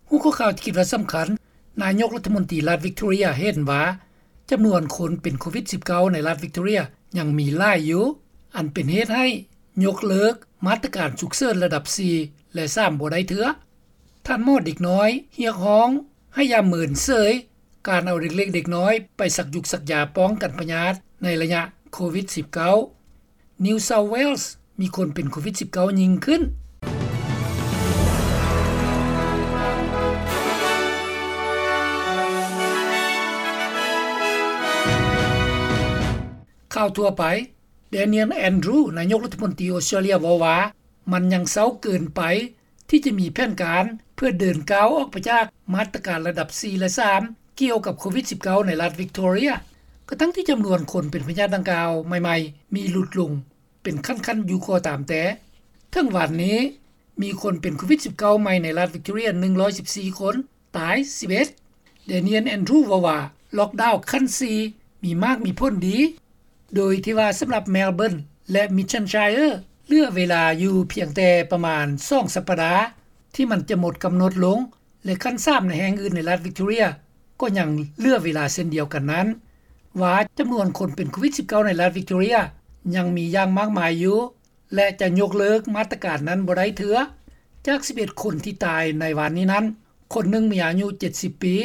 ຫົວຂໍ້ຂ່າວທີ່ຄິດວ່າສຳຄັນ, ນາຍົກລັດຖະມົນຕີລັດວິກຕໍເຣຍເຫັນວ່າ ຈຳນວນຄົນເປັນໂຄວິດ-19 ໃນລັດວິກຕໍເຣຍຍັງມີຫຼາຍຢູ່, ອັນເປັນເຫດໃຫ້ຍົກເລີກມາດຕະການສຸກເສີນລະດັບສີ່ ແລະ ສາມ ບໍ່ໄດ້ເທື່ອ. ທ່ານໝໍເດັກນ້ອຍຮຽກຮ້ອງໃຫ້ຢ່າເມີນເສີຍການເອົາເດັກເລັກເດັກນ້ອຍໄປສັກຢຸກສັກຢາປ້ອງກັນພະຍາດໃນໄລຍະໂຄວິດ-19. New South Wales ມີຄົນເປັນໂຄວິດ-19 ຍິ່ງຂຶ້ນ. ຂ່າວທົ່ວໄປ, Daniel Andrews ນາຍົກລັດຖະມົນຕີອົດສະຕຣາເລຍເວົ້າວ່າ ມັນຍັງເຊົ້າເກີນໄປ ທີ່ຈະມີແຜນການເພື່ອເດີນກ້າວອອກໄປຈາກມາດຕະການລະດັບສີ່ ແລະ ສາມ ກ່ຽວກັບໂຄວິດ-19 ໃນລັດວິກຕໍເຣຍ, ກະທັ່ງທີ່ຈຳນວນຄົນເປັນພະຍາດດັ່ງກ່າວໃໝ່ໆ ມີຫຼຸດລົງເປັນຂັ້ນໆຢູ່ກໍຕາມແຕ່. ເຖິງວັນນີ້ ມີຄົນເປັນໂຄວິດ-19 ໃໝ່ໃນລັດວິກຕໍເຣຍ ໜຶ່ງຮ້ອຍສິບສີ່ຄົນ, ຕາຍ ສິບເອັດ. Daniel Andrews ເວົ້າວ່າ ລັອກດາວຂັ້ນສີ່ ມີໝາກມີຜົນດີ, ໂດຍທີ່ວ່າສຳລັບ Melbourne ແລະ Mission Shire ເຫຼືອເວລາຢູ່ພຽງແຕ່ປະມານສອງສັບປະດາ ທີ່ມັນຈະໝົດກຳນົດລົງ ແລະ ຂັ້ນສາມໃນແຫ່ງອື່ນໃນລັດວິກຕໍເຣຍ ກໍຍັງເຫຼືອເວລາເຊັ່ນດຽວກັນນັ້ນ, ວ່າຈຳນວນຄົນເປັນໂຄວິດ-19 ໃນລັດວິກຕໍເຣຍຍັງມີຢ່າງມາກມາຍຢູ່ ແລະ ຈະຍົກເລີກມາດຕະການນັ້ນບໍ່ໄດ້ເທື່ອ. ຈາກສິບເອັດຄົນທີ່ຕາຍໃນວານນີ້ນັ້ນ, ຄົນໜຶ່ງມີອາຍຸເຈັດສິບປີ,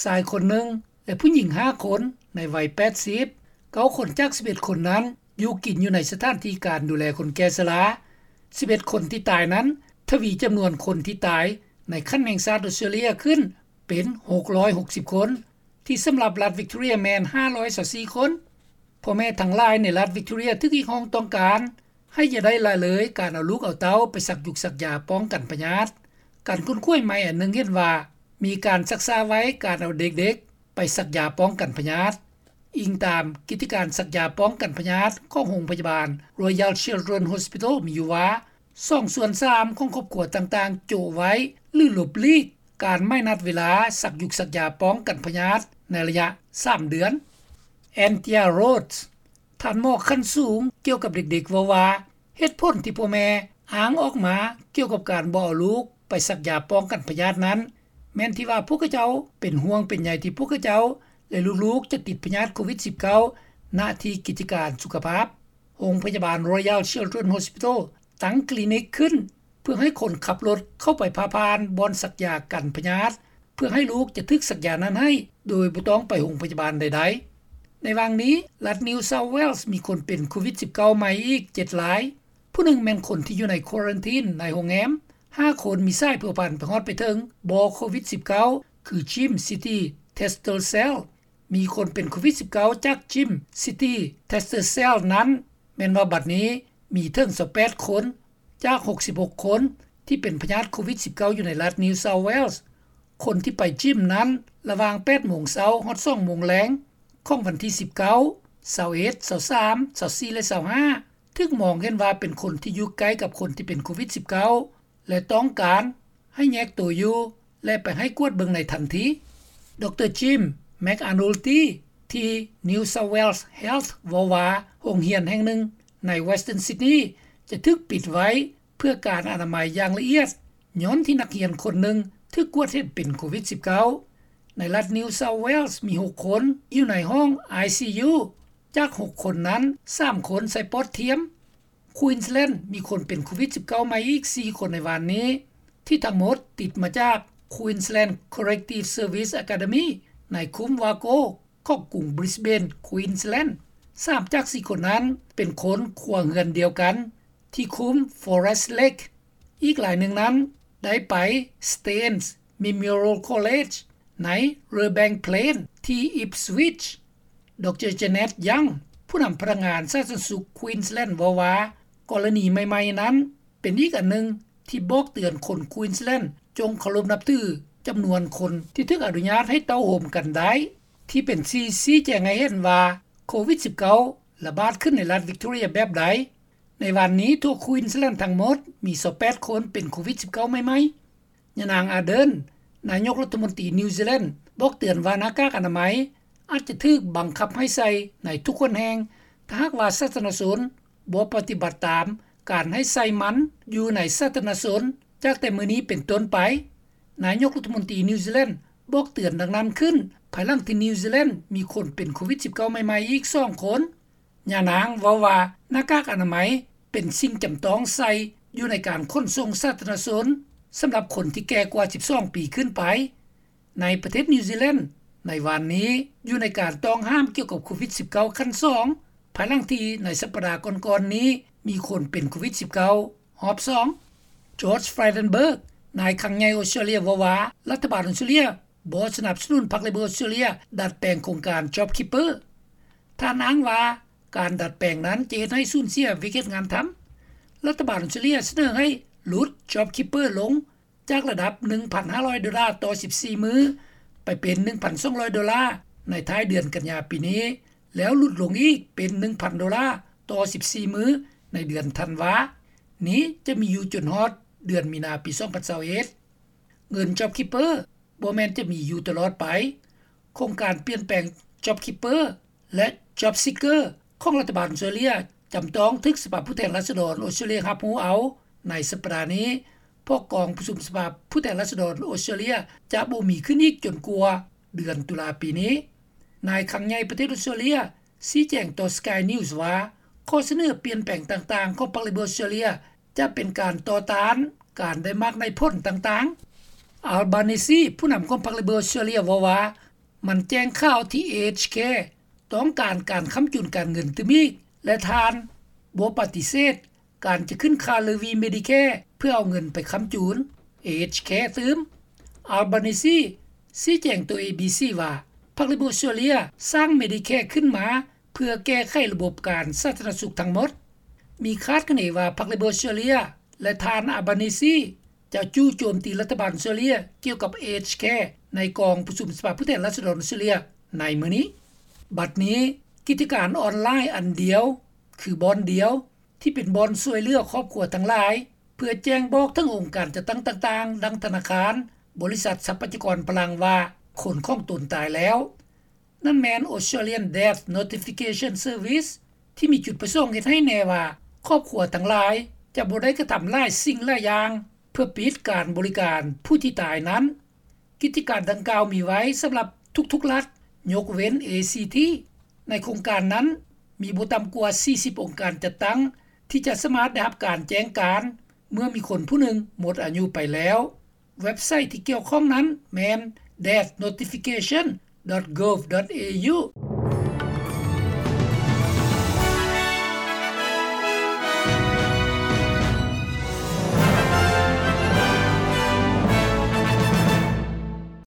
ຊາຍຄົນໜຶ່ງ ແລະ ຜູ້ຍິງຫ້າຄົນໃນໄວແປດສິບ. ເກົ້າຄົນຈາກສິບເອັດຄົນນັ້ນ ຢູ່ກິນຢູ່ໃນສະຖານທີ່ການດູແລຄົນແກ່ຊະລາ. ສິບເອັດຄົນທີ່ຕາຍນັ້ນ ທະວີຈຳນວນຄົນທີ່ຕາຍໃນຂັ້ນແຫ່ງຊາດອົດສະຕຣາເລຍຂຶ້ນເປັນຫົກຮ້ອຍຫົກສິບຄົນ, ທີ່ສຳລັບລັດວິກຕໍເຣຍແມ່ນຫ້າຮ້ອຍຊາວສີ່ຄົນ. ພໍ່ແມ່ທັງຫຼາຍໃນລັດວິກຕໍເຣຍຖືກຮຽກຮ້ອງຕ້ອງການໃຫ້ຢ່າໄດ້ລະເລີຍການເອົາລູກເອົາເຕົ້າໄປສັກຢຸກສັກຢາປ້ອງກັນພະຍາດ. ການຄົ້ນຄວ້າໃໝ່ອັນໜຶ່ງເຫັນວ່າ ມີການຊັກຊ້າໄວ້ການເອົາເດັກໆໄປສັກຢາປ້ອງກັນພະຍາດ. ອີງຕາມກິດຈະການສັກຢາປ້ອງກັນພະຍາດຂອງໂຮງພະຍາບານ Royal Children's Hospital ມີຢູ່ວ່າ ສອງສ່ວນສາມຂອງຄອບຄົວຕ່າງໆໂຈະໄວ້ ຫຼື ຫຼົບຫຼີກການໝາຍນັດເວລາສັກຢຸກສັກຢາປ້ອງກັນພະຍາດໃນໄລຍະສາມເດືອນ. Antia Rhodes ທ່ານໝໍຂັ້ນສູງກ່ຽວກັບເດັກໆເວົ້າວ່າ ເຫດຜົນທີ່ພໍ່ແມ່ອ້າງອອກມາກ່ຽວກັບການບໍ່ເອົາລູກໄປສັກຢາປ້ອງກັນພະຍາດນັ້ນ ແມ່ນທີ່ວ່າພວກເຂົາເຈົ້າເປັນຫ່ວງເປັນໃຍທີ່ພວກເຂົາເຈົ້າ ແລະ ລູກໆຈະຕິດພະຍາດໂຄວິດ-19 ນະທີ່ກິດຈະການສຸຂະພາບ. ໂຮງພະຍາບານ Royal Children's Hospital ຕັ້ງຄລີນິກຂຶ້ນ ເພື່ອໃຫ້ຄົນຂັບລົດເຂົ້າໄປຜ່າຜ່ານບ່ອນສັກຢາກັນພະຍາດ ເພື່ອໃຫ້ລູກຈະຖືກສັກຢານັ້ນໃຫ້ ໂດຍບໍ່ຕ້ອງໄປໂຮງພະຍາບານໃດໆ. ໃນຫວ່າງນີ້, ລັດ New South Wales ມີຄົນເປັນໂຄວິດ-19 ໃໝ່ອີກເຈັດລາຍ. ຜູ້ໜຶ່ງແມ່ນຄົນທີ່ຢູ່ໃນຄວາຣັນທີນໃນໂຮງແຮມ. ຫ້າຄົນມີສາຍພົວພັນໄປຮອດໄປເຖິງບໍ່ໂຄວິດ-19 ຄື Gym City Tester Cell. ມີຄົນເປັນໂຄວິດ-19 ຈາກ Gym City Tester Cell ນັ້ນ ແມ່ນວ່າບັດນີ້ມີເຖິງຊາວແປດຄົນ ຈາກຫົກສິບຫົກຄົນທີ່ເປັນພະຍາດໂຄວິດ-19 ຢູ່ໃນລັດ New South Wales. ຄົນທີ່ໄປຈິມນັ້ນ ລະຫວ່າງແປດໂມງເຊົ້າຮອດສອງໂມງແລງຂອງວັນທີສິບເກົ້າ, ຊາວເອັດ, ຊາວສາມ, ຊາວສີ່ ແລະ ຊາວຫ້າ ຖືກມອງເຫັນວ່າເປັນຄົນທີ່ຢູ່ໃກ້ກັບຄົນທີ່ເປັນໂຄວິດ-19 ແລະ ຕ້ອງການໃຫ້ແຍກໂຕຢູ່ ແລະ ໄປໃຫ້ກວດເບິ່ງໃນທັນທີ. ດຣ Jim McAnulty ທີ່ New South Wales Health ເວົ້າວ່າ ໂຮງຮຽນແຫ່ງໜຶ່ງໃນ Western Sydney ຈະຖືກປິດໄວ້ເພື່ອການອະນາໄມຢ່າງລະອຽດ ຍ້ອນທີ່ນັກຮຽນຄົນໜຶ່ງຖືກກວດເຫັນເປັນໂຄວິດ-19. ໃນລັດ New South Wales ມີຫົກຄົນຢູ່ໃນຫ້ອງ ໄອຊີຢູ ຈາກຫົກຄົນນັ້ນ ສາມຄົນໃສ່ປອດທຽມ. Queensland ມີຄົນເປັນໂຄວິດ-19 ໃໝ່ອີກສີ່ຄົນໃນວານນີ້ ທີ່ທັງໝົດຕິດມາຈາກ Queensland Corrective Service Academy ໃນຄຸ້ມ Wargo ຂອງກຸງ Brisbane Queensland. ສາມຈາກສີ່ຄົນນັ້ນເປັນຄົນຄົວເຮືອນດຽວກັນທີ່ຄຸ້ມ Forest Lake. ອີກລາຍໜຶ່ງນັ້ນໄດ້ໄປ Staines Memorial College ໃນ Redbank Plains ທີ່ Ipswich. ດຣ Janet Young ຜູ້ນຳພະນັກງານສາທາລະນະສຸກ Queensland ເວົ້າວ່າ ກໍລະນີໃໝ່ໆນັ້ນເປັນອີກອັນໜຶ່ງທີ່ບອກເຕືອນຄົນ Queensland ຈົ່ງເຄົາລົບນັບຖືຈຳນວນຄົນທີ່ຖືກອະນຸຍາດໃຫ້ເຕົ້າໂຮມກັນໄດ້ ທີ່ເປັນທີ່ຊີ້ແຈງໃຫ້ເຫັນວ່າໂຄວິດ-19 ລະບາດຂຶ້ນໃນລັດ Victoria ແບບໃດ. ໃນວັນນີ້ທົ່ວ Queensland ທັງໝົດມີຊາວແປດຄົນເປັນໂຄວິດ-19 ໃໝ່ໆ. ຍານາງ Ardern ນາຍົກລັດຖະມົນຕີ New Zealand ບອກເຕືອນວ່າໜ້າກາກອະນາໄມອາດຈະຖືກບັງຄັບໃຫ້ໃສ່ໃນທຸກຄົນແຫ່ງ ຖ້າຫາກວ່າສາທາລະນະຊົນບໍ່ປະຕິບັດຕາມການໃຫ້ໃສ່ມັນຢູ່ໃນສາທາລະນະຊົນຈາກແຕ່ມື້ນີ້ເປັນຕົ້ນໄປ. ນາຍົກລັດຖະມົນຕີນິວຊີແລນ ບອກເຕືອນດັ່ງນັ້ນຂຶ້ນ ພາຍຫຼັງທີ່ນິວຊີແລນມີຄົນເປັນໂຄວິດ-19 ໃໝ່ໆອີກສອງຄົນ. ຍານາງເວົ້າວ່າ ໜ້າກາກອະນາໄມເປັນສິ່ງຈຳຕ້ອງໃສ່ຢູ່ໃນການຂົນສົ່ງສາທາລະນະຊົນ ສຳລັບຄົນທີ່ແກ່ກວ່າສິບສອງປີຂຶ້ນໄປ. ໃນປະເທດນິວຊີແລນ ໃນວານນີ້ ຢູ່ໃນການຕ້ອງຫ້າມກ່ຽວກັບໂຄວິດ-19 ຂັ້ນສອງ ພາຍຫຼັງທີ່ໃນສັບປະດາກ່ອນໆນີ້ ມີຄົນເປັນໂຄວິດ-19 ຮອບສອງ. ຈອດ ຟຣາຍເດັນເບີກ ນາຍຄັງໃຫຍ່ອົດສະຕຣາເລຍເວົ້າວ່າ ລັດຖະບານອົດສະຕຣາເລຍບໍ່ສະໜັບສະໜູນພັກເລເບີອົດສະຕຣາເລຍດັດແປງໂຄງການ ຈອບຄີບເປີ. ທ່ານອ້າງວ່າ ການດັດແປງນັ້ນຈະເຮັດໃຫ້ສູນເສຍວຽກເຮັດງານທຳ. ລັດຖະບານອົດສະຕຣາເລຍສະເໜີໃຫ້ຫຼຸດ ຈອບຄີບເປີ ລົງຈາກລະດັບ ໜຶ່ງພັນຫ້າຮ້ອຍໂດລາຕໍ່ສິບສີ່ມື້ ໄປເປັນ ໜຶ່ງພັນສອງຮ້ອຍໂດລາໃນທ້າຍເດືອນກັນຍາປີນີ້ ແລ້ວຫຼຸດລົງອີກເປັນ ໜຶ່ງພັນໂດລາຕໍ່ສິບສີ່ມື້ໃນເດືອນທັນວາ. ນີ້ຈະມີຢູ່ຈົນຮອດເດືອນມີນາປີສອງພັນຊາວເອັດ. ເງິນ ຈອບຄີບເປີ ບໍ່ແມ່ນຈະມີຢູ່ຕະຫຼອດໄປ. ໂຄງການປ່ຽນແປງ ຈອບຄີບເປີ ແລະ ຈອບຊີກເກີ ຂອງລັດຖະບານອົດສະຕຣາເລຍ ຈຳຕ້ອງຖືກສະພາຜູ້ແທນລາຊະດອນອົດສະຕຣາເລຍຮັບຮູ້ເອົາໃນສັບປະດານີ້ ເພາະກອງປະຊຸມສະພາຜູ້ແທນລາຊະດອນອົດສະຕຣາເລຍຈະບໍ່ມີຂຶ້ນອີກຈົນກວ່າເດືອນຕຸລາປີນີ້. ນາຍຄັງໃຫຍ່ປະເທດອົດສະຕຣາເລຍຊີ້ແຈງຕໍ່ ສະກາຍນິວສ໌ ວ່າ ຂໍ້ສະເໜີປ່ຽນແປງຕ່າງໆຂອງພັກເລເບີອົດສະຕຣາເລຍ ຈະເປັນການຕໍ່ຕ້ານການໄດ້ມາກໄດ້ຜົນຕ່າງໆ. ອາລບານີຊີ ຜູ້ນຳຂອງພັກເລເບີອົດສະຕຣາເລຍເວົ້າວ່າ ມັນແຈ້ງຂ່າວທີ່ ເອເອັດເອັດເຄ ຕ້ອງການການຄ້ຳຈຸນການເງິນຕື່ມອີກ ແລະ ທ່ານບໍ່ປະຕິເສດການຈະຂຶ້ນຄ່າເລວີ ເມດິແຄ ເພື່ອເອົາເງິນໄປຄ້ຳຈຸນ ເອເອັດເອັດເຄ ຕື່ມ. ອາລບານີຊີຊີ້ແຈງຕໍ່ ເອບີຊີ ວ່າ ພັກເລເບີອົດສະຕຣາເລຍສ້າງ ເມດິແຄ ຂຶ້ນມາ ເພື່ອແກ້ໄຂລະບົບການສາທາລະນະສຸກທັງໝົດ. ມີຄາດຄະເນວ່າ ພັກເລເບີອົດສະຕຣາເລຍ ແລະ ທ່ານ ອາລບານີຊີ ຈະຈູ່ໂຈມຕີລັດຖະບານອົດສະຕຣາເລຍກ່ຽວກັບ ເອເອັດເອັດເຄ ໃນກອງປະຊຸມສະພາຜູ້ແທນລາຊະດອນອົດສະຕຣາເລຍໃນມື້ນີ້. ບັດນີ້ ກິດຈະການອອນລາຍອັນດຽວ ຄືບ່ອນດຽວ ທີ່ເປັນບ່ອນຊ່ວຍເຫຼືອຄອບຄົວທັງຫຼາຍ ເພື່ອແຈ້ງບອກເຖິງອົງການຈັດຕັ້ງຕ່າງໆ ດັ່ງທະນາຄານ, ບໍລິສັດຊັບພະຍາກອນພະລັງວ່າ ຄົນຂອງຕົນຕາຍແລ້ວ. ນັ້ນແມ່ນ Australian Death Notification Service ທີ່ມີຈຸດປະສົງເຮັດໃຫ້ແນ່ວ່າ ຄອບຄົວທັງຫຼາຍຈະບໍ່ໄດ້ກະທຳຫຼາຍສິ່ງຫຼາຍຢ່າງ ເພື່ອປິດການບໍລິການຜູ້ທີ່ຕາຍນັ້ນ. ກິດຈະການດັ່ງກ່າວມີໄວ້ສຳລັບທຸກໆລັດ ຍົກເວັ້ນ ເອຊີທີ. ໃນໂຄງການນັ້ນ ມີບໍ່ຕ່ຳກວ່າສີ່ສິບອົງການຈັດຕັ້ງ ທີ່ຈະສາມາດໄດ້ຮັບການແຈ້ງການ ເມື່ອມີຄົນຜູ້ໜຶ່ງໝົດອາຍຸໄປແລ້ວ. ເວັບໄຊທີ່ກ່ຽວຂ້ອງນັ້ນແມ່ນ death notification dot gov dot au.